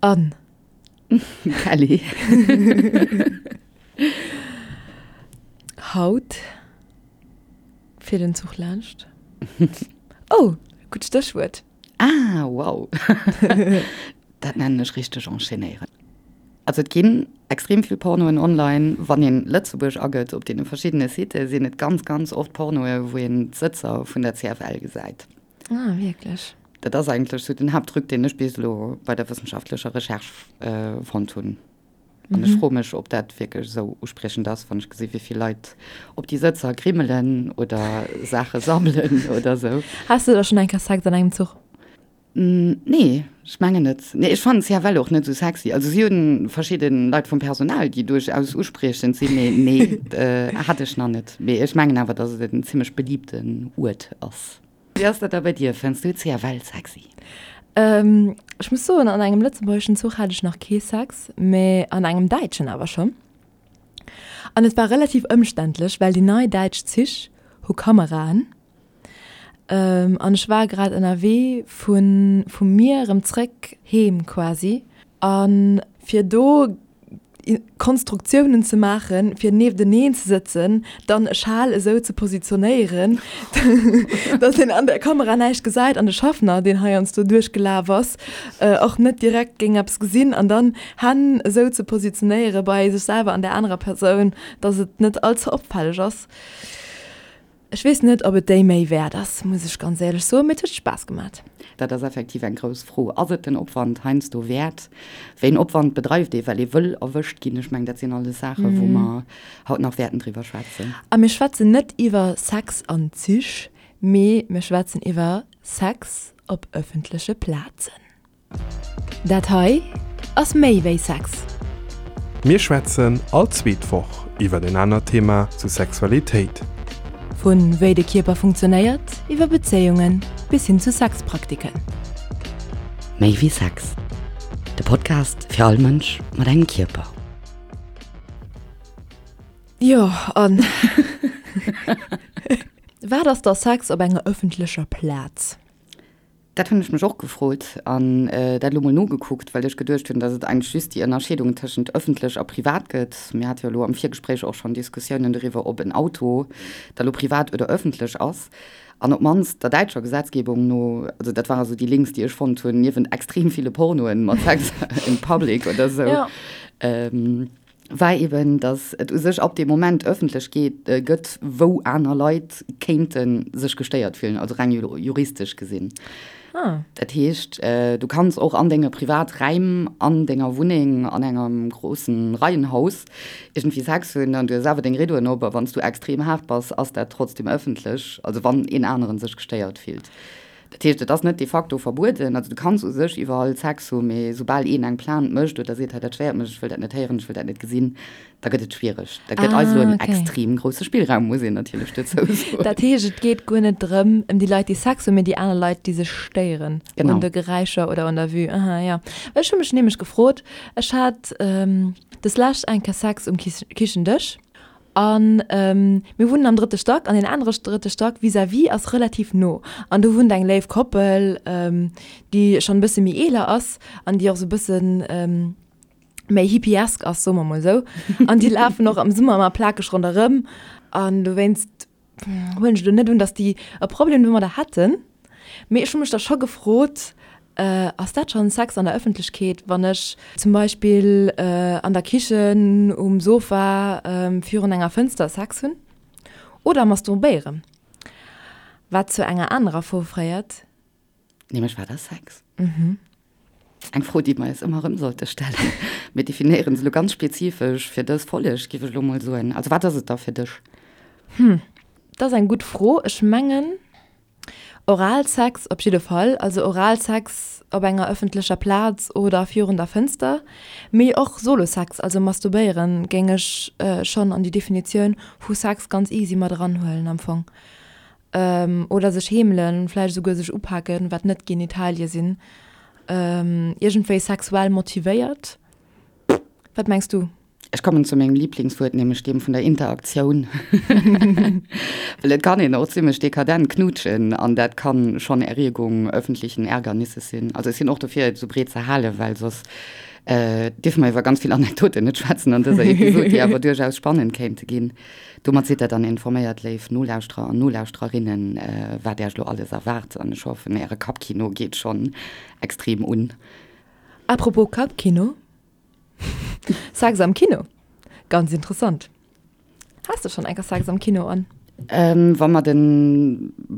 An. Kelly. Haut fiert en Zuch laanscht. Oh, gutt Stéchwuert. Ah, wow. Dat nennen ech richteg enchaînéieren. Also et ginn extrem vill Pornoen online. Wann een Lëtzebuerg agëtt op deene verschiddene Sitë sinn et ganz, ganz oft Pornoe wou een d'Sëtzer vun der CFL gesäit. Ah, wierklech? Dat ass eigentlech sou den Haapttruc, deen ech bis elo bei der wëssenschaftlecher Recherche fonnt hunn. An ech froe mech, ob dat wierklech esou uspriechend ass, wann ech gesi wéi vill Leit op déi Sëtzer grimmelen oder Saache sammelen oder esou. Has de da schonn eng Kéier Sex an engem Zuch? Nee, ech mengen net. Nee, ech fannen CFL och net esou sexy. Also si hunn verschidde Leit vum Personal, déi duerchaus uspriechend sinn, mee nee, hat ech nach net. Mee ech mengen awer, datt et en zimmlech beliebten Uert ass. Wéi ass dat da bei dir? Fënns du CFL sexy? Ech muss soen, an engem lëtzebuergeschen Zuch hat ech nach kee Sex, mee an engem däitschen awer schonn. An et war relativ ëmständlech, well déi nei däitsch Zich hu Kameraen. An ech war grad ënnerwee vu vu mir erëm zréck heem quasi. A fir do Konstruktiounen ze maachen, fir niefteneen ze sëtzen, dann e Schal esou ze positionéieren, datt een an der Kamera näischt gesäit an de Schaffner, deen heiansdo duerchgelaf ass, och net direkt géing eppes gesinn an dann Hänn esou ze positionéiere bei sech selwer an där anerer Persoun, datt et net all ze opfälleg ass. Ech weess net, ob et déi Méi wäert ass, muss ech ganz éierlech soen, mee et huet Spaass gemat. Dat ass effektiv eng grouss Fro. Ass et den Opwand heiansdo wäert? Wéi een Opwand bedreift ee well ee wëll erwëscht ginn? Ech mengen, dat sinn alles Saachen, wou mer haut nach wäerten driwwer schwätzen. A mir schwätzen net iwwer Sex an Zich, mee mir schwätzen iwwer Sex op ëffentleche Plazen. Dat hei ass méi wéi Sex. Mir schwätzen all zweet Woch iwwer en anert Thema zu Sexualitéit. Vu wéi de Kierper funktionéiert, iwwer Bezéiungen bis hin zu Sexpraktiken. Méi wéi Sex, de Podcast fir all Mënsch mat engem Kierper. Jo, an wat ass da Sex op enger ëffentlecher Plaz? Dat hunn ech mech och gefrot an dat elo mol nogekuckt, well ech geduecht hunn, datt et eigentlech just déi Ënnerscheedung tëschent ëffentlech a privat gëtt. Mir hate jo elo am Virgespréich och schonn Diskussiounen doriwwer, ob en Auto da lo privat oder ëffentlech ass. An op d'mannst der däitscher Gesetzgebung no, also dat ware sou déi Links, déi ech fonnt hunn, niewent extrem ville Pornoen mat Sex in public oder sou, war eben, datt et u sech ab deem Moment ëffentlech geet, gëtt, wou aner Leit kéinte sech gestéiert fillen, also reng juristesch gesinn. Ah. Dat heescht, du kanns och an denge Privaträim, an denger Wunneng, an engem groussen Reihenhaus iergendwéi Sex hunn an du hues awer deng Riddoen op a wann s du extrem haart bass, ass dat trotzdem ëffentlech, also wann een aneren sech gestéiert fillt. Dat heescht, et ass net de facto verbueden. Also du kanns u sech iwwerall Sex hu, mee soubal een eng Plainte mécht oder seet, hei dat stéiert mech, ech wëll dat net héieren, ech wëll dat net gesinn, da gëtt et schwiereg. Dat gëtt eis elo en extrem grousse Spillraum, muss een natierlech dozou soen. Dat heescht, et geet guer net drëm, ëm déi Leit, déi Sex hunn, mee déi aner Leit, déi sech stéieren un de Geräischer oder un der Vue. Aha, jo. Well ech hu mech nämlech gefrot, ech hat deslescht eng Kéier Sex um Kichendësch. An mir wunnen am drëtte Stack an deen anere drëtte Stack vis-à-vis ass relativ no. An do wunnt eng léif Koppel, déi schonn e bësse méi eeler ass an déi och esou e bësse méi hippiesk ass, soe mer mol esou. An déi lafen och am Summer ëmmer plakeg ronderëm. An dowéinst huelen ech elo net un, datt déi e Problem domadder hätten. Mee ech hu mech da scho gefrot, Ass dat schonn Sex an der Ëffentlechkeet, wann ech zum Beispill an der Kichen um Sofa virun enger Fënster Sex hunn oder masturbéieren? Wat zu enger anerer Fro féiert. Nämlech, Wat ass Sex? Eng Fro, déi mer eis ëmmer erëm sollte stellen. Mir definéieren se elo ganz spezifesch fir dës Folleg, géif ech elo mol soen. Also wat ass et da fir dech? Hm, dat ass eng gutt Fro. Ech mengen, Oralsex op jidde Fall, also Oralsex op enger ëffentlecher Plaz oder virun der Fënster, mee och Solosex, also masturbéieren, géing ech schonn an déi Definitioun vu Sex ganz easy mat eranhuelen am Fong. Oder sech heemelen, vläicht esouguer sech upaken, wat net Genitalie sinn, iergendwéi sexuell motivéiert. Wat mengs du? Ech kommen zu mengem Lieblingswuert, nämlech deem vun der Interaktioun. Well et kann een och zimmlech dekadent knutschen an dat kann schonn Erregung öffentlichen Ärgernisses sinn. Also ech sinn och dofir, et esou breet ze halen, well soss dierfe mer iwwer ganz vill Anekdoten net schwätzen an dëser Episod, déi awer duerchaus spannend kéinte ginn. Domat sidd der dann informéiert, léif Nolauschterer an Nolauschtererinnen, wat Äech elo alles erwaart an ech hoffen, Äre Kappkino geet schonn extrem un. Apropos Kappkino, Sex am Kino, ganz interessant. Has de schonn enker Sex am Kino an? Wa mer de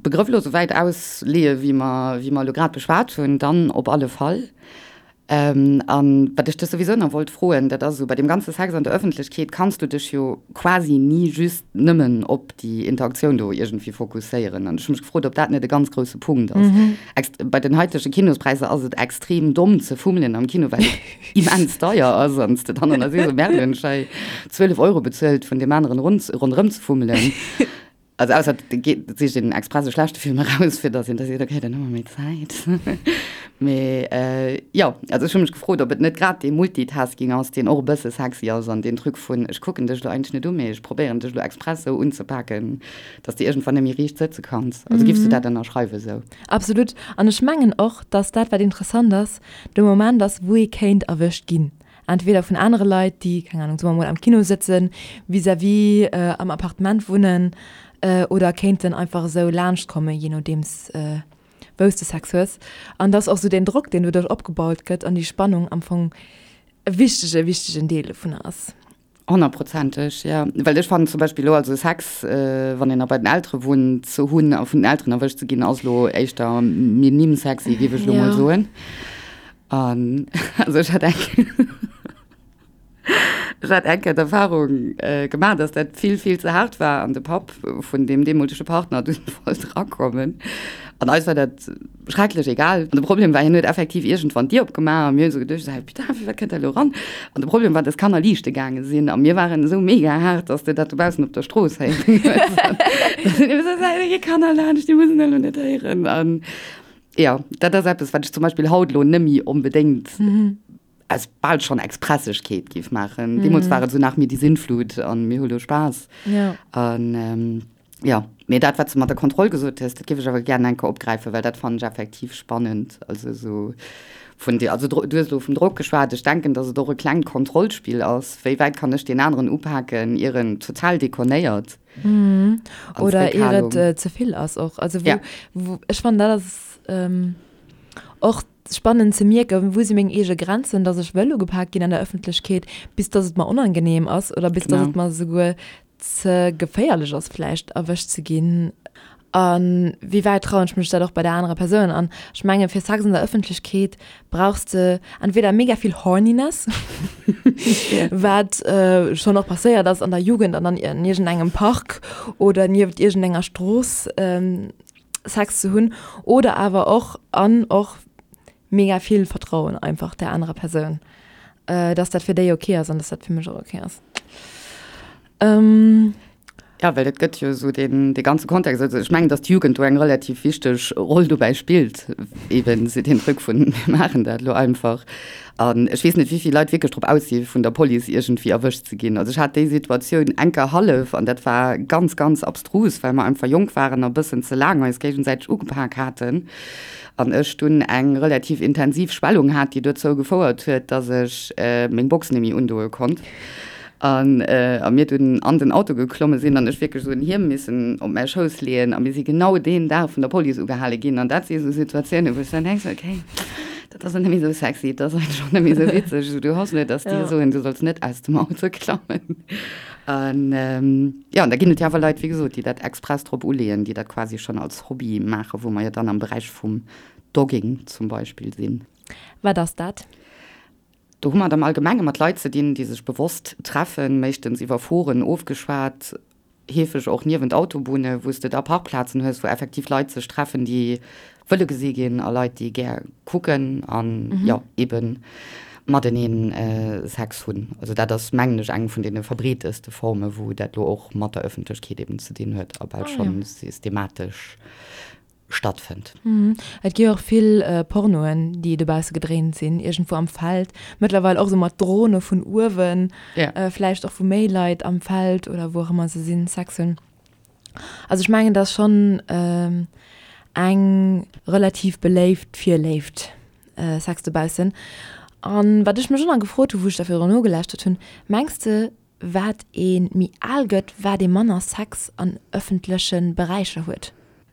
Begrëff elo esou wäit ausleeë wéi mer wéi mer elo grad beschwat hunn, dann op alle Fall. An wat ech dech souwisou nach wollt froen, dat ass esou, bei deem ganze Sex an der Ëffentlechkeet kanns du dech jo quasi ni just nëmmen op déi Interaktioun do iergendwéi fokusséieren. An ech hu mech gefrot, ob dat net e ganz grousse Punkt ass. Bei den haitege Kinospräisser ass et extrem domm ze fummelen am Kino, well et immens deier ass an s de dann an der sees, oh merde, hunn ech hei 12 Euro bezuelt vun deem aneren ronderëm ze fummelen. Also ausser et geet, et sicht een express e schlechte Film eraus, fir datt een da seet, okay, dann hu mer méi Zäit. Mee jo, also ech hu mech gefrot, ob et net grad dee Multitasking ass, deen och e bësse sexy ass an deen Truc vun ech kucken dech elo eigentlech net u, mee ech probéieren dech elo express esou unzepaken, datt s de iergendwann net méi riicht sëtze kanns. Also giffs du dat ënnerschreiwen esou? Absolut. An ech mengen och, datt dat, wat interessant ass, de Moment ass, wou ee kéint erwëscht ginn. Entweder vun anere Leit, déi, keng Ahnung, soe mer mol am Kino sëtzen, vis-à-vis am Appartement wunnen oder kéinten einfach esou laanscht kommen, jee nodeems wou s de Sex hues. An dass och esou deen Drock, deen doduerch opgebaut gëtt an déi Spannung am Fong e wichtege, wichtegen Deel dovunner ass. Honnertprozenteg, jo. Well ech fannen zum Beispill elo, also Sex, wann een nach bei den Eltere wunnt, ze hunn a vun den Elteren erwëscht ze ginn, ass elo éischter minim sexy, géif ech elo mol soen. An also ech hat eng ech hat eng Kéier d'Erfahrung gemaach, dass dat vill, vill ze haart war an de Papp vun deem deemolege Partner dunn wollt erakommen. An eis war dat schrecklech egal. An de Problem war, hien huet effektiv iergendwann d'Dier opgemaach a mir hunn esou geduecht, esou, putain, firwat kënnt dat elo eran? An de Problem war, dass d'Kanner liichte gaange sinn a mir waren esou mega haart, dass de dat dobaussen op der Strooss héieren hues. Da sinn mir esou, da gi Kanner laanscht, déi mussen dat elo net héieren. An jo, dat ass eppes, wat ech zum Beispill haut elo net méi onbedéngt aus bal schonn Expressegkeet géif maachen. Deemools war et esou nach mir die Sintflut an mir hu lo Spaass. Ja. An jo, mee dat, wat s de mat der Kontroll gesot hues, dat géif ech awer gären eng Kéier opgräifen, well dat fannen ech effektiv spannend. Also esou vun dir, also du hues elo vum Drock geschwat, ech denken, datt et och e klengt Kontrollspill ass, wéi wäit kann ech deen aneren upaken, ier en total dekonnéiert. Oder ier et ze vill ass och. Also wou, wou, ech fannen dat ass och Spannend ze mierken, wou si meng eege Grenzen, dass ech wëll ugepak ginn an der Ëffentlechkeet, bis dass et mer onangenehm ass oder bis dass et mer esouguer ze geféierlech ass vläicht erwëscht ze ginn. A wéi wäit trauen ech mech dat och bei der anerer Persoun? An ech menge fir Sex an der Ëffentlechkeet brauchs de entweder mega vill Horniness, wat schonn och passéiert ass an der Jugend an an iergendengem Park oder nieft iergendenger Strooss, Sex ze hunn oder awer och an och mega vill Vertrauen einfach der anerer Persoun, dass dat fir déi ok ass an dass dat fir mech och ok ass. Ja, well et gëtt jo esou deen dee ganze Kontext, also ech mengen, datt d'Jugend do eng relativ wichteg Roll dobäi spillt, eben esou deen Truc vun mir maachen dat elo einfach. An ech weess net, wéi vill Leit wierklech drop aus si vun der Police iergendwéi erwëscht ze ginn. Also ech hat déi Situatioun enker hallef an dat war ganz, ganz abstrus, well mer einfach jonk waren a bëssen ze laang eis géigesäiteg ugepak haten an ech dunn eng relativ intensiv Schwellung hat, déi dozou gefouert huet, dass ech meng Box net méi undoe konnt. An a mir dunn an den Auto geklomme sinn an ech wierklech esou en Hiem missen op mäi Schouss leeën a mir si genau deen Dag vun der Police ugehale ginn. An dat si esou Situatiounen, wou ech dann denken, okay, dat ass net méi esou sexy, dat ass eigentlech och net méi esou witzeg. Esou, du hoffs net, dass déi soen, du solls net aus dem Auto klammen. An jo, an da ginn et jo awer Leit, wéi gesot, déi dat express drop uleeën, déi dat quasi schonn als Hobby maachen, wou mer jo dann am Beräich vum Dogging zum Beispill sinn. Wat ass dat? Do hu mer et am Allgemenge mat Leit ze dinn, déi sech bewosst treffen, meeschtens iwwer Foren ofgeschwat, heefeg och niewent Autobunne, wou s de da Parkplazen hues, wou effektiv Leit sech treffen, déi wëlle gesi ginn a Leit, déi gär kucken an, jo, eebe matenee Sex hunn. Also dat ass, mengen ech, eng vun deene verbreeteste Forme wou dat elo och mat der Ëffentlechkeet eeben ze dinn huet a bal scho systematesch. Stattfënnt. Et gi och vill Pornoen, déi dobausse gedréint sinn, iergendwou am Feld. Mëttlerweil och esou mat Drone vun uewen, vläicht och wou méi Leit am Feld oder wou och ëmmer se sinn, Sex hunn. Also ech mengen, et ass schonn eng relativ beléift Virléift, Sex dobaussen. An wat ech mech och nach gefrot hu wou ech da virdrun nogelauschtert hunn, Mengs de, wat ee méi al gëtt, wat ee manner Sex an ëffentleche Beräicher huet?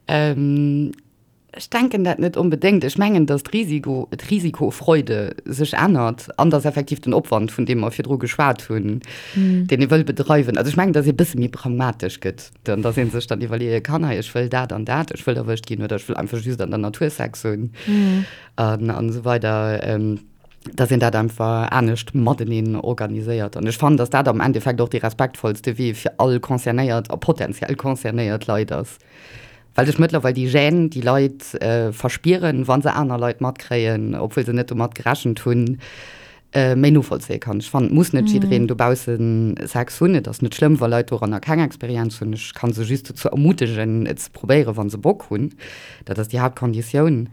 Ech denken dat net onbedéngt. Ech mengen, datt d'Risiko, d'Risikofreude sech ännert an datt effektiv den Opwand, vun deem mer virdru geschwat hunn, deen ee wëll bedreiwen, also ech mengen, datt ee bësse méi pragmatesch gëtt an datt ee sech dann iwwerleeë kann, hei ech wëll dat an dat, ech wëll erwëscht ginn oder ech wëll einfach just an der Natur Sex hunn an esou weider. Dass een dat einfach anescht mateneen organiséiert. An ech fannen, dass dat am Endeffekt och dee respektvollste Wee fir all concernéiert a potenziell concernéiert Leit ass. Well sech mëttlerweil déi Gêne, déi Leit verspieren, wa se aner Leit matkréien, obwuel se net domat gerechent hunn, méi novollzéie kann. Ech fannen, et muss net jiddereen dobausse Sex hunn. Et ass net schlëmm, wa Leit doranner keng Experienz hunn. Ech ka se just dozou ermutegen, et ze probéieren, wa se Bock hunn. Dat ass déi Haaptkonditioun.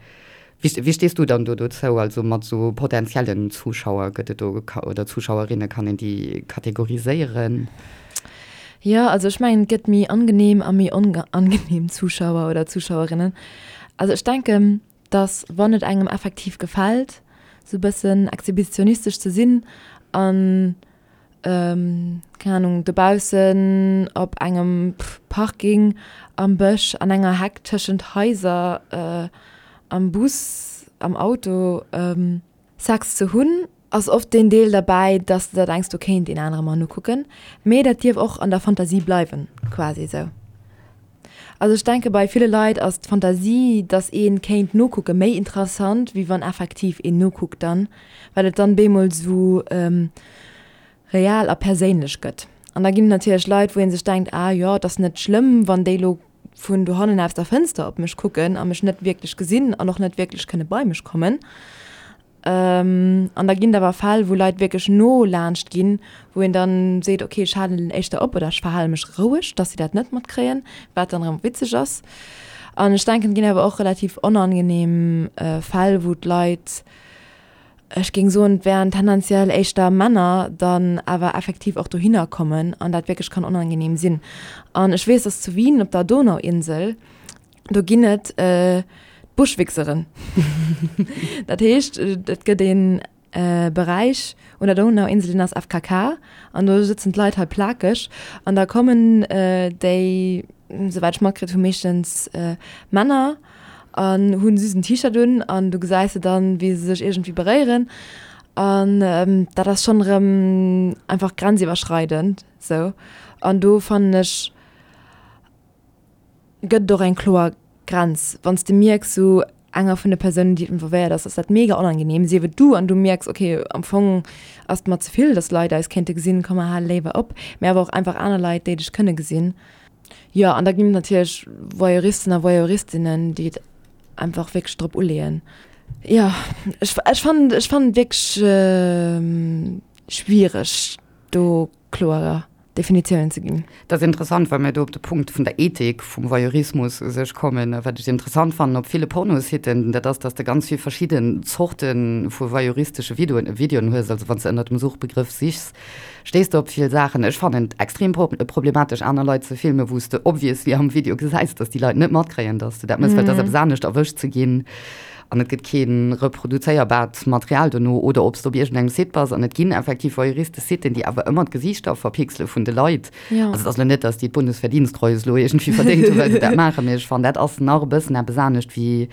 Wéi stees du dann do dozou, also mat esou potentiellen Zuschauer, gëtt et do, oder Zuschauerinne, kann een déi kategoriséieren? Jo, also ech mengen et gëtt méi angenehm a méi onangenehm Zuschauer oder Zuschauerinnen. Also ech denken, dass wann et engem effektiv gefält, sou bëssen exhibitionistesch ze sinn an keng Ahnung, dobaussen op engem Parking, am Bësch, an enger Heck, tëschent Haiser, am Bus, am Auto Sex ze hunn, ass oft deen Deel derbäi, dass de der denks, do kéint een anere mer nokucken. Mee dat dierf och an der Fantasie bleiwen, quasi esou. Also ech denke bei ville Leit ass d'Fantasie, dass ee kéint nokucke méi interessant, wéi wann effektiv een nokuckt dann, well et dann bemol sou real a perséinlech gëtt. An da ginn et natierlech Leit, wou ee sech denkt, ah jo, et ass net schlëmm, wann déi lo vun dohannen aus der Fënster op mech kucken a mech net wierklech gesinn an och net wierklech kënne bei mech kommen. An da ginn et awer Fäll, wou Leit wierklech no laanscht ginn, wou een dann seet, okay, ech halen éischter op oder ech verhale mech roueg, dass si dat net matkréien, wat dann erëm witzeg ass. An ech denken, et ginn awer och relativ onangenehm Fäll, wou d'Leit, ech géing soen, et wären tendenziell éischter Männer, dann awer effektiv och dohinner kommen an dat wierklech kann onangenehm sinn. An ech weess, dass zu Wien op der Donauinsel, Do ginn et d'Buschwichseren. Dat heescht, et gëtt ee Beräich un der Donauinsel, deen ass FKK an do sëtzen d'Leit hei plakeg an da kommen déi, souwäit ech matkritt hu meeschtens Männer an hunn just en T-Shirt un an du gesäis se dann, wéi se sech iergendwéi beréieren an dat ass schonn erëm einfach grenziwwerschreidend sou an do fannen ech, Gëtt et och eng kloer Grenz? Wann s de mierks, sou enger vun de Persounen, déi involvéiert ass, ass dat mega onangenehm, sief et du an du mierks, okay, am Fong ass et mer ze vill, dass Leit eis kéinte gesinn, komm mer hale léiwer op, mä awer och einfach aner Leit, déi dech kënne gesinn. Jo, an da ginn et natierlech Voyeuristen a Voyeuristinnen, déi et einfach wierklech drop uleeën. Jo, ech, ech fannen, ech fannen et wierklech schwiereg do kloer Definitiounen ze ginn. Dat ass interessant, well mir do op de Punkt vun der Ethik vum Voyeurismus u sech kommen. A wat ech interessant fannen op ville Pornositen, dat ass, dass de ganz vill verschidden Zorte vu voyeuristesche Videoen, Videoen hues. Also wann s de ënnert dem Suchbegrëff sichs, stéiss de op vill Saachen. Ech fannen et extrem problematesch, aner Leit ze filmen, wou s de obviously am Video gesäis, dass déi Leit net matkréien, dass de dat méchs, well et ass eppes anescht erwëscht ze ginn an et gëtt kee reproduzéierbaart Material dono, oder ob s de op iergendengem Site bass an et ginn effektiv voyeuristesch Siten, déi awer ëmmer d'Gesiichter verpixele vun de Leit. Ja. Also et ass elo net, datt déi d'Bundesverdienstkreuz elo iergendwéi verdéngt hunn, well se dat maachen, mee ech fannen, dat ass nach e bëssen eppes anescht, wéi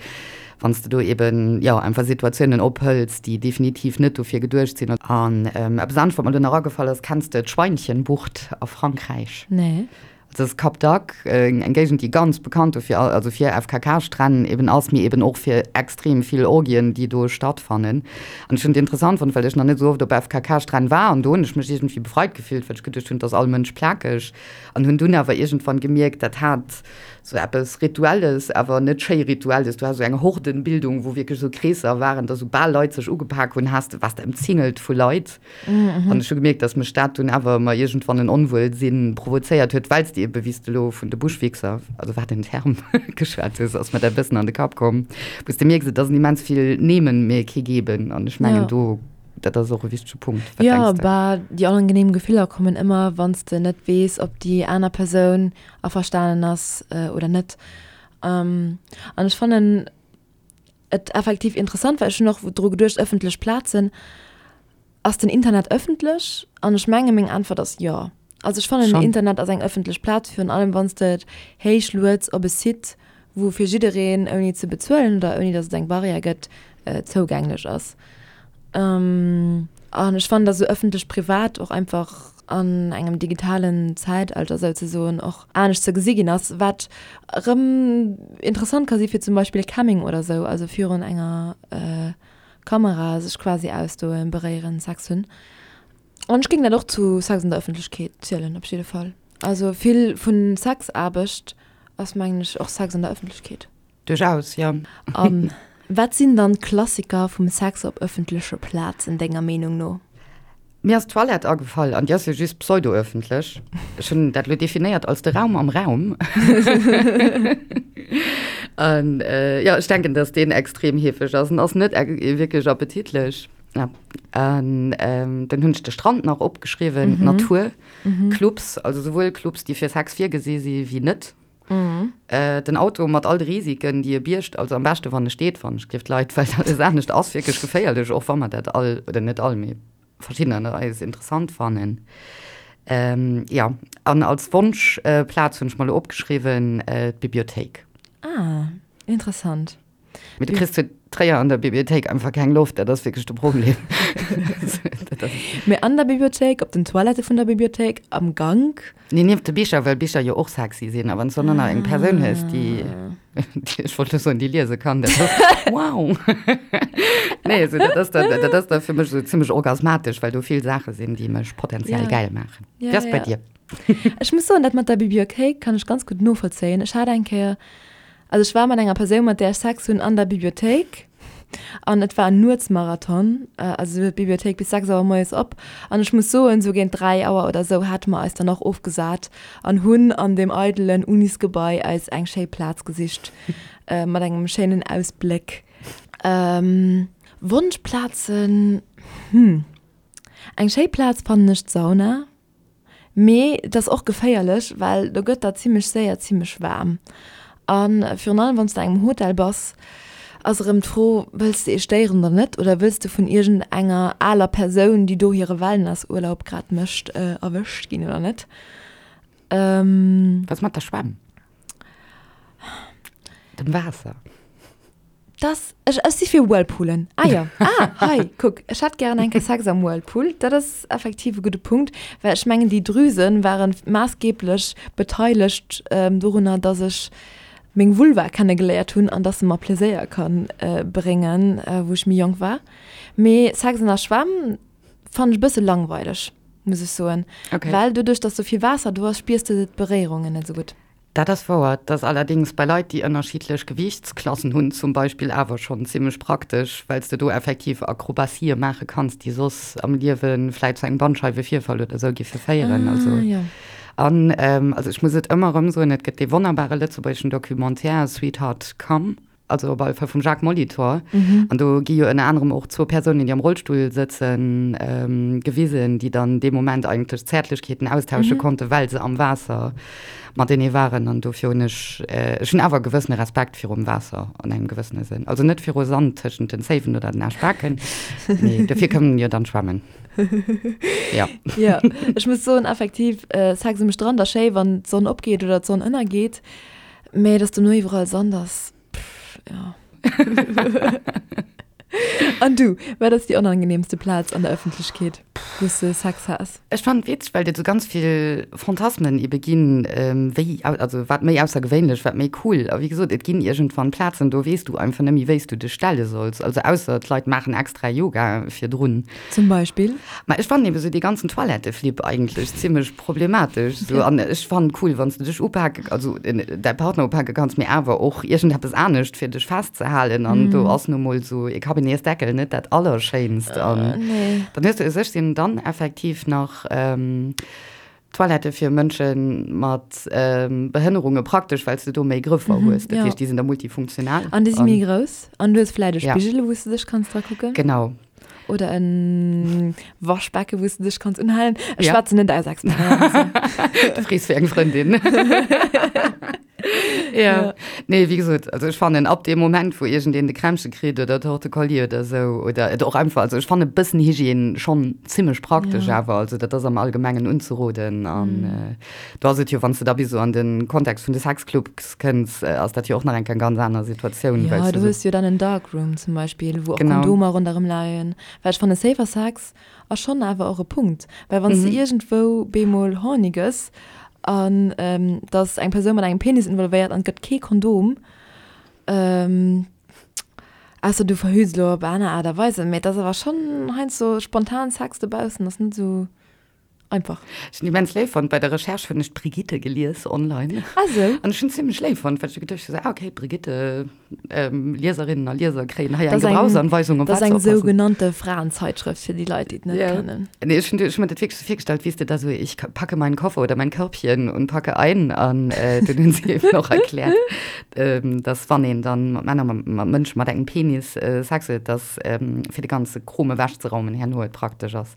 wann s de do eeben, jo, einfach Situatiounen ophëls, déi definitiv net dofir geduecht sinn. An eppes anescht, wat mer elo nach agefall ass, Kenns de d'Schweinchenbucht a Frankräich? Nee. Dat ass Cap d'Agde, eng Géigend, déi ganz bekannt dofir, also fir FKK-Stränn eben ass, mee eben och fir extrem vill Orgien, déi do stattfannen. An ech hunn et interessant fonnt, well ech nach net esou oft op FKK-Stränn war an do hunn ech mech iergendwéi befreit gefillt, well ech geduecht hunn, et ass all Mënsch plakeg. An hunn dunn awer iergendwann gemierkt, dat hat esou eppes Rituelles, awer net schéi Rituelles. Du has esou eng Hordenbildung, wou wierklech esou Kreesser waren, dass soubal Leit sech ugepak hunn, has de, waars de ëmzingelt vu Leit. An ech hu gemierkt, dass mech dat dunn awer ëmmer iergendwann en Onwuelsinn provozéiert huet, well s de. ebe wéi s de elo vun de Buschwichser, also wat en Term, geschwat hues, ass mer dat e bëssen an de Kapp komm, wou s de mierks, et ass en immens vill Nehmen, mee kee Geben. An ech mengen do, dat ass och e wichtege Punkt. Wat denks de? Jo, bah, déi onangenehm Gefiller kommen ëmmer, wann s de net weess, ob déi aner Persoun averstanen ass oder net. An ech fannen et effektiv interessant, well ech hunn och dru geduecht, ëffentlech Plazen, Ass den Internet ëffentlech? An ech menge meng Äntwert ass jo. Also ech fannen den Internet ass eng ëffentlech Plaz, virun allem wann s de et héich lueds op e Site, wou fir jiddereen ouni ze bezuelen oder ouni datt et eng Barrière gëtt, zougänglech ass. An ech fannen, datt esou ëffentlech-privat och einfach an engem digitalen Zäitalter souzesoen och anescht ze gesi ginn ass, wat erëm interessant ka si fir zum Beispill Camming oder esou, also virun enger Kamera sech quasi ausdoen, beréieren, Sex hunn. An ech géing dat och zu Sex an der Ëffentlechkeet zielen, op jidde Fall. Also vill vu Sexaarbecht ass, mengen ech, och Sex an der Ëffentlechkeet. Duerchaus, jo. A wat sinn dann d'Klassiker vum Sex op ëffentleche Plazen, denger Meenung no? Mir ass d'Toilette agefall, an déi ass jo just pseudo-öffentlech. Ech hunn dat elo definéiert als de Raum am Raum. An jo, ech denken, dass deen extrem heefeg ass an ass net wierklech appetitlech. Ja, an dann hunn ech de Strand nach opgeschriwwen, d'Natur, Clubs, also souwuel Clubs, déi fir Sex virgesi si wéi net. Den Auto mat all de Risiken, déi e biergt, also am beschte wann e steet, wann ech géif d'Leit, well alles anescht ass wierklech geféierlech, och wa mer dat all, oder net all, mee verschiddener ënner eis interessant fannen. Jo, an als Wonschplaz hunn ech mer elo opgeschriwwen, d'Bibliothéik. Ah, interessant. Mee du kriss zu Tréier an der Bibliothéik einfach keng Loft, dat ass wierklech de Problem. Mee an der Bibliothéik, op den Toilette vun der Bibliothéik, am Gank? Nee, nieft de Bicher, well Bicher jo och sexy sinn. A wann s du dann nach eng Persoun hues, déi, ech wollt elo soen, déi liese kann, dat ass wow! Nee, also dat ass dann, dat ass da fir mech esou zimmlech orgasmatesch, well do vill Saache sinn, déi mech potenziell gäil maachen. Wéi ass et bei dir? Ech muss soen, dat mat der Bibliothéik kann ech ganz gutt novollzéien. Ech hat eng Kéier Also ech war mat enger Persoun, mat där ech Sex hunn, an der Bibliothéik an et war en Nuetsmarathon. Also sou huet d'Bibliothéik bis 6 Auer moies op an ech muss soen, sou géint 3 Auer oder sou hate mer eis dann och ofgesat an hunn an deem eidelen Unisgebai eis eng schéi Plaz gesicht mat engem schéinen Ausbléck. Wonschplazen, hm, eng schéi Plaz fannen ech d'Sauna. Mee et ass och geféierlech, well do gëtt der zimmlech séier zimmlech waarm. A virun allem wann s de an engem Hotel bass, ass erëm d'Fro, wëlls de ee stéieren oder net? Oder wëlls de vun iergend enger aler Persoun, déi do hire Wellnessurlaub grad mécht, erwëscht ginn oder net? Was mat der Schwämm? Dem Waasser? Das, ech, ech si fir Whirlpoolen. Ah jo, ah, hei, kuck, ech hätt gären eng Kéier Sex am Whirlpool. Dat ass effektiv e gudde Punkt, well ech mengen, déi Drüse ware maassgeeblech beteilegt dorunner, dass ech meng Vulva kennegeléiert hunn an dass se mer Pleséier ka bréngen, wou ech méi jonk war. Mee Sex an der Schwämm fannen ech e bësse langweileg, muss ech soen. Okay. Well doduerch, dass sou vill Waasser do ass, spiers de d'Beréierungen net esou gutt. Dat ass wouer. Et ass allerdéngs bei Leit, déi ënnerschiddlech Gewiichtsklassen hunn zum Beispill awer schonn zimmlech praktesch, well s de do effektiv Akrobatië maache kanns, déi soss am Liewe vläit zu engem Bandscheiwevirfall oder esou giffe féieren. Also, an also ech muss et ëmmer erëm soen, et gëtt dee wonnerbare lëtzebuergeschen Documentaire Sweetheart Come. also op alle Fall vum Jacques Molitor. Mhm. An do gi jo ënner anerem och zwou Persounen, déi am Rollstull sëtzen, ähm, gewisen, déi dann dee Moment eigentlech Zäertlechkeeten austausche mhm. konnten, well se am Waasser matenee waren. An dofir hunn ech, äh, ech hunn awer e gewëssene Respekt virum Waasser an engem gewëssene Sënn. Also net viru Sand tëschent den Zéiwen oder den Aschbaken, mee dofir kënnen jo dann schwammen. Ja. Ja, ech muss soen, effektiv, äh, Sex um Strand ass schéi, wann d'Sonn opgeet oder d'Sonn ënnergeet. Mee dass dono iwwerall Sand ass, pff, ja. An du, wat ass déi onangenehmste Plaz an der Ëffentlechkeet, wou s de Sex has? Ech fannen et witzeg, well et esou ganz vill Fantasmen ebe ginn, wéi, also wat méi aussergewéinlech, wat méi cool. A wéi gesot, et ginn iergendwann Plazen, do weess du einfach net méi, wéi s du dech stelle solls. Also ausser d'Leit maachen extra Yoga virdrun. Zum Beispill? Ma ech fannen eben esou dee ganzen Toiletteflip eigentlech zimmlech problematesch esou. An ech fannen cool, wann s de dech upake, also däi Partner upake kanns, mee awer och iergendeppes anescht fir dech festzehalen. An do ass nu mol esou ee Kabinetsdeckel net dat Allerschéinst. An dann hues de u sech sinn dann effektiv nach. Toilette fir Mënsche mat Behënnerunge praktesch, well s de do méi Grëffer hues. Dat heescht, déi sinn da multifunktional. An déi si méi grouss. An du hues vläicht e Spigel, wou s de dech kanns dra kucken. Genau. Oder e Waschbecke, wou s de dech kanns unhalen. Ech schwätzen net aus Experienz. Du frees fir eng Frëndin. Ja. Nee, wéi gesot, also ech fannen ab deem Moment, wou iergendeen de Krämpche kritt oder Torte-Colli oder esou oder et och einfach, also ech fanne bëssen Hygiène schonn zimmlech praktesch ja. awer, also dat ass am Allgemengen unzeroden an mm. äh, do ass et jo, wann s de da bis esou an den Kontext vun de Sexclubs kënns, äh, ass dat jo och nach eng ganz aner Situatioun. Ja, du hues jo dann en Darkroom zum Beispiel, wou och genau. Kondomer ronderëm leien, well ech fanne Safer Sex Ass schonn awer och e Punkt, well wann s de iergendwou bemol horny gëss an et ass eng Persoun mat engem Penis involvéiert an et gëtt kee Kondom, ausser du verhüts elo op aner Aart a Weisen, mee et ass awer schonn heiansdo spontan Sex dobaussen ass net esou einfach. Ech hunn immens léif fonnt, bei der Recherche hunn ech d'Brigitte gelies online. Ah sou. An ech hunn zimmlech léif fonnt, well ech geduecht hunn, ah okay, d'Brigitte. Lieserinnen a Lieser kréien hei eng Gebrauchsanweisung op wat ze oppassen. Dat ass eng sougenannte Fraenzeitschrëft fir déi Leit, déi et net kennen. Nee, ech hunn mir dat wierklech sou virgestallt, wéi s de da sou, ich packe meinen Koffer oder mein Körbchen und packe ein. An dunn hunn si eben och erkläert, dass wann een dann mat Männer, mat Mënsche mat engem Penis Sex huet, dass fir de ganze Krom ewechzeraumen herno et praktesch ass,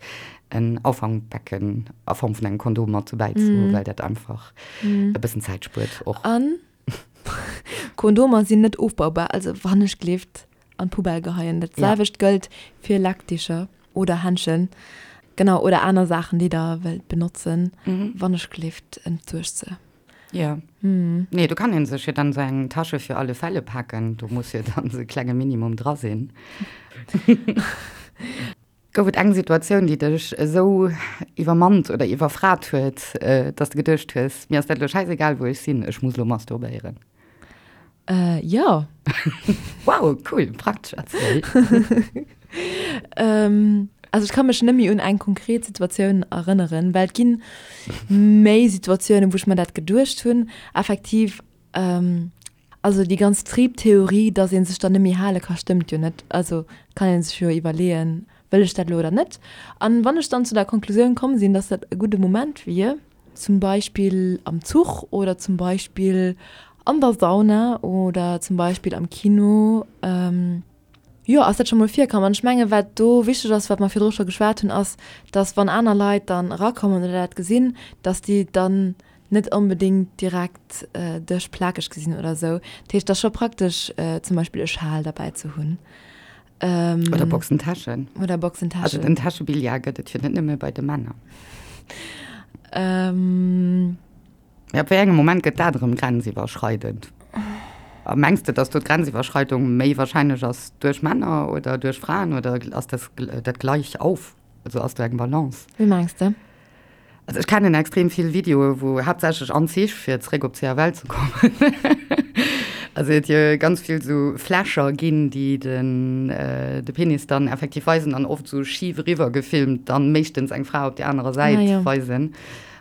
en Auffangbecken a Form vun engem Kondom mat dobäi ze hunn, well dat einfach e bëssen Zäit spuert och. An Kondomer sinn net ofbaubar, also wannechgelift an d'Poubelle geheien. Dat selwecht gëllt fir Leckdicher oder Händschen, genau, oder aner Saachen, déi der wëllt benotzen, wannechgelift entsuergt se. Jo. Nee, do kann ee sech jo dann esou eng Tasche für alle Fälle paken, do muss jo dann esou e klenge Minimum dra sinn. Gouf et eng Situatioun, déi dech esou iwwermannt oder iwwerfrat huet, dass de geduecht hues, mir ass dat elo schäisegal, wou ech sinn, ech muss elo masturbéieren? Jo. Wow, cool, praktesch, erziel. Also ech ka mech net méi un eng konkret Situatioun erënneren, well et ginn méi Situatiounen, wou ech mer dat geduecht hunn. Effektiv Also déi ganz Triebtheorie, dass ee sech dann net méi hale ka, stëmmt jo net. Also kann ee sech jo iwwerleeën, wëll ech dat elo oder net? An wann ech dann zu der Konklusioun komm sinn, dass dat e gudde Moment wier, zum Beispill am Zuch oder zum Beispill an der Sauna oder zum Beispill am Kino, Jo, ass dat scho mol virkomm. An ech mengen, wat do wichteg ass, wat mer virdru scho geschwat hunn, ass, dass wann aner Leit dann erakommen oder dat gesinn, dass déi dann net onbedéngt direkt dech plakeg gesinn oder esou. Dat heescht, et ass scho praktesch, zum Beispill e Schal derbäi ze hunn. Oder Boxentäschen. Oder Boxentäschen. Also den Täschebillard gëtt et jo net nëmme bei de Männer. Mee ab wéi engem Moment gëtt dat erëm grenziwwerschreidend? A mengs de, datt do d'Grenziwwerschreidung méi wahrscheinlech ass duerch Männer oder duerch Fraen oder ass das dat gleich auf? Also ass do eng Balance? Wéi mengs de? Also ech kennen extrem vill Videoe wou haaptsächlech an Zich, fir zeréck op CFL ze kommen, also et jo ganz vill sou Fläscher ginn, déi den de Penis dann effektiv weisen an oft sou schif eriwwer gefilmt dann meeschtens eng Fra op där anerer Säit weisen.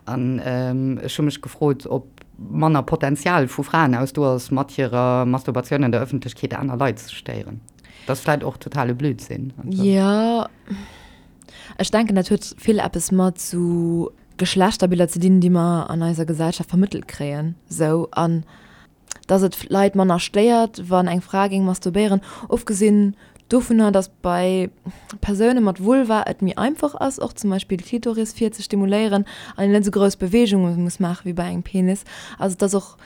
An ech hu mech gefrot, ob manner Potenzial vu Fraen aus do ass, mat hirer Masturbatioun an der Ëffentlechkeet aner Leit ze stéieren. Dat ass vläit och totale Blödsinn. Jo, ech denken, dat huet vill eppes mat sou Geschlechterbiller ze dinn, déi mer an eiser Gesellschaft vermëttelt kréien. Sou, an dass et Leit manner stéiert, wann eng Fra géing masturbéieren, ofgesinn dovunner, dass bei Persoune mat Vulva et méi einfach ass, och zum Beispill d'Klitoris fir ze stimuléieren an een net esou grouss Beweegunge muss maache wéi bei engem Penis. Also et ass och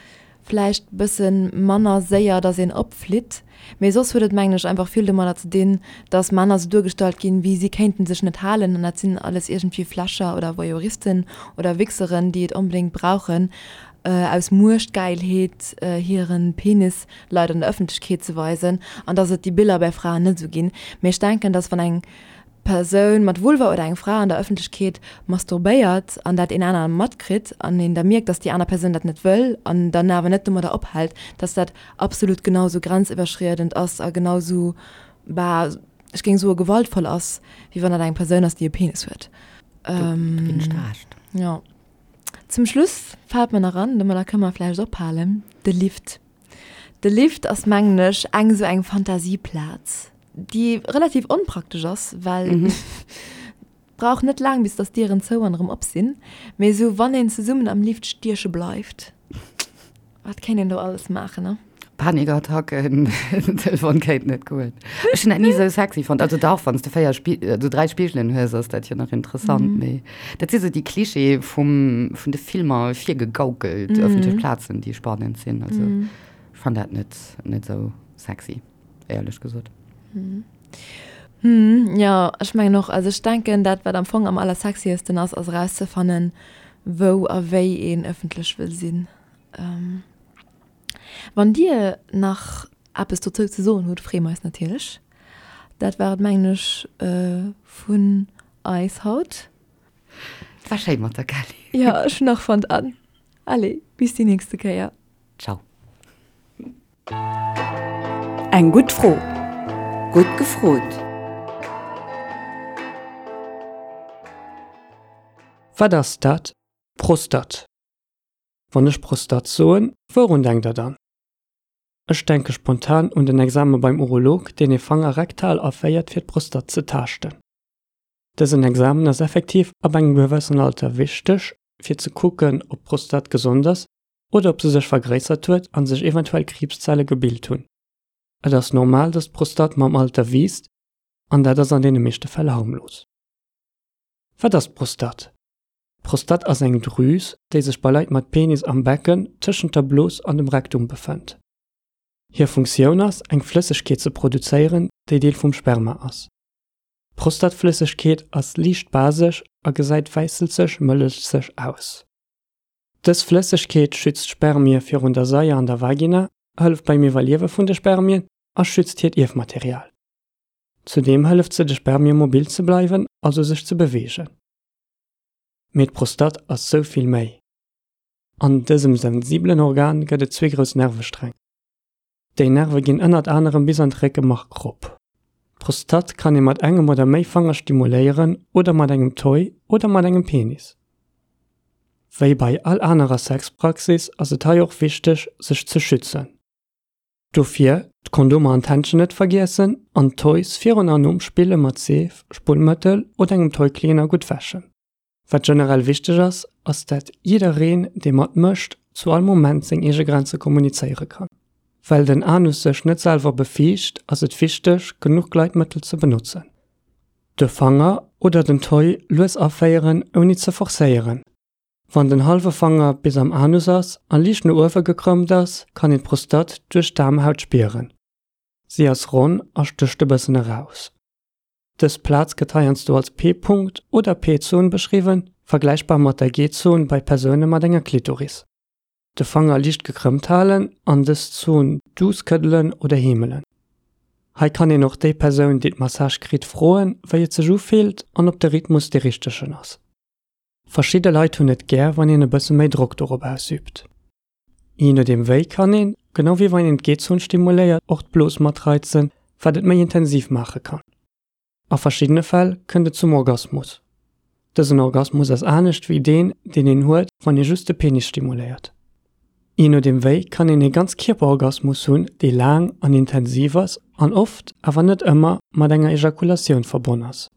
vläicht bësse manner séier, dass een opflitt. Mee soss huet et, mengen ech, einfach vill domadder ze dinn, dass Männer sou duergestallt ginn, wéi si kéinten sech net halen an dat sinn alles iergendwéi Fläscher oder Voyeuristen oder Wichseren, déi et onbedéngt brauchen, aus Muechtgäilheet hiren Penis Leit an der Ëffentlechkeet ze weisen an dass et déi Biller bei Fraen net esou ginn. Mee ech denken, dass wann eng Persoun mat Vulva oder eng Fra an der Ëffentlechkeet masturbéiert an dat een anere matkritt an een da mierkt, dass déi aner Persoun dat net wëll an dann awer net domadder ophält, dass dat absolut genau esou grenziwwerschriedend ass a genau esou, bah, ech géing soe gewaltvoll ass, wéi wann dat eng Persoun ass, déi e Penis huet. Do ginn ech der Recht. Jo. Zum Schluss fält mer nach an, domadder kënne mer vläicht ophalen, de Lift. De Lift ass, mengen ech, eng esou eng Fantasieplaz, déi relativ onpraktesch ass, well. Brauch net laang bis dass d'Dieren zou an erëm op sinn, mee esou wann een zesummen am Lift stieche bleift, wat kéint een do alles maachen, ne? Panikattacken, den Telefon kéint net goen. Ech hunn dat ni esou sexy fonnt. Also dach, wann s de 4 Spi-, also 3 Spigelen hues, ass dat jo nach interessant, mee dat si sou déi Klischeeë vum, vun de Filmer virgegaukelt, ëffentlech Plazen, déi spannend sinn. Also ech fannen dat net, net esou sexy. éierlech gesot. Hm, jo, ech mengen och. Also ech denken, dat wat am Fong am allersexiesten ass, ass erauszefannen, wou a wéi een ëffentlech wëll sinn. Wann Dir nach eppes dozou ze soen hutt, freeë mer eis natierlech. Dat war et, mengen ech, vun eis haut. Et war schéi mat der Kelly. Jo, ech hunn och fonnt. An allez, bis déi nächste Kéier. Ciao. Eng gutt Fro. Gutt gefrot. Wat ass dat? Prostat. Wann ech Prostat soen, wourun denkt der dann? Ech denke spontan un den Exame beim Urolog, deen ee Fanger rektal aféiert fir d'Prostat ze taaschten. Dësen Examen ass effektiv ab engem gewëssen Alter wichteg fir ze kucken ob d'Prostat gesond ass oder ob se sech vergréissert huet an sech eventuell Kriibszelle gebilt hunn. Et ass normal, dass d'Prostate mam Alter wiisst an dat ass an deene meeschte Fäll harmlos. Wat ass d'Prostate? D'Prostate ass eng Drüs, déi sech bei Leit mat Penis am Becken tëschent der Blos an dem Rektum befënnt. Hir Funktioun ass, eng Flëssegkeet ze produzéieren, déi Deel vum Sperma ass. D'Prostatflëssegkeet ass liicht basesch a gesäit wäisselzeg-mëllechzeg aus. Dës Flëssegkeet schützt d'Spermie virun der Saier an der Vagina, hëlleft beim Iwwerliewe vun de Spermien a schützt hiert Ierfmaterial. Zudeem hëlleft se de Spermie mobil ze bleiwen, also sech ze beweegen. Mee d'Prostate ass sou vill méi. An dësem sensibelen Organ gëtt et zwee grouss Nervesträng. Déi Nerve ginn ënnert anerem bis an d'Réckemark rop. D'Prostate kann ee mat engem oder méi Fanger stimuléieren oder mat engem Toy oder mat engem Penis. Wéi bei all anerer Sexpraxis ass et hei och wichteg sech ze schützen. Dofir d'Kondomer an d'Händschen net vergiessen an d'Toys virun an nom Spille mat Seef, Spullmëttel oder engem Toy-Cleaner gutt wäschen. Wat generell wichteg ass, ass dat jiddereen dee mat mécht zu all Moment seng eege Grenze kommunizéiere kann. Well den Anus sech net selwer befiicht, ass et wichteg genuch Gleitmëttel ze benotzen. De Fanger oder den Toy lues aféieren ouni ze forcéieren. Wann den hallwe Fanger bis am Anus ass a liicht no uewe gekrëmmt ass, kann een d'Prostate duerch d'Aarmhaut spieren. Si ass ronn a stécht e bëssen eraus. Dës Plaz gëtt heiansdo als P-Punkt oder P-Zon beschriwwen, vergläichbar mat der G-Zon bei Persoune mat enger Klitoris. De Fanger liicht gekrëmmt halen an dës Zon duuss këddelen oder heemelen. Hei kann een och déi Persoun, déi d'Massage kritt, froen, wéi et sech ufillt an ob de Rhythmus dee richtegen ass. Verschidde Leit hunn et gär, wann een e bësse méi Drock dorop ausüübt. Jee nodeem wéi kann een, genau wéi wann een d'G-Zon stimuléiert, och d'Blos matreizen, wat et méi intensiv maache kann. A verschiddene Fäll kënnt et zum Orgasmus. Dësen Orgasmus ass anescht wéi deen, deen een huet, wann ee just de Penis stimuléiert. Jee nodeem wéi kann een ee Ganzkierperorgasmus hunn, dee laang an intensiv ass an oft, awer net ëmmer, mat enger Ejakulatioun verbonn ass.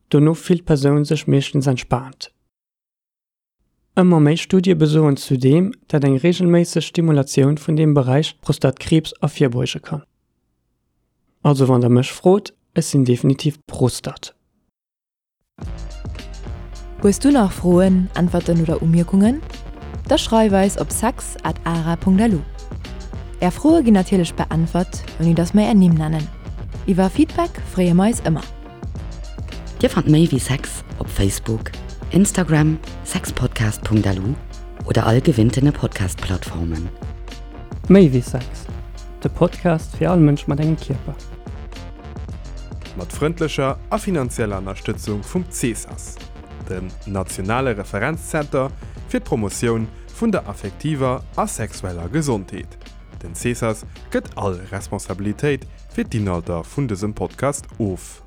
Dono fillt d'Persoun sech meeschtens entspaant. Ëmmer méi Studie besoen zudeem, dat eng reegelméisseg Stimulatioun vun deem Beräich Prostatkriibs ervirbeuge kann. Also wann der mech frot, ech sinn definitiv Prostat. Hues du nach Froen, Äntwerten oder Umierkungen? Da schreif eis op sex at ara.lu. Är Froe ginn natierlech beäntwert, ouni dass mer är Nimm nennen. Iwwer Feedback freeë mer eis ëmmer. Dir fannt méi wéi Sex op Facebook, Instagram, sexpodcast.lu oder all gewinntene Podcast-Plattformen. Méi wéi Sex, de Podcast fir all Mënsch mat engem Kierper. Mat frëndlecher a finanzieller Ënnerstëtzung vum CESAS, dem nationale Referenzzenter fir d'Promotioun vun der affektiver a sexueller Gesondheet. Den CESAS gëtt all Responsabilitéit fir d'Inhalter vun dësem Podcast of.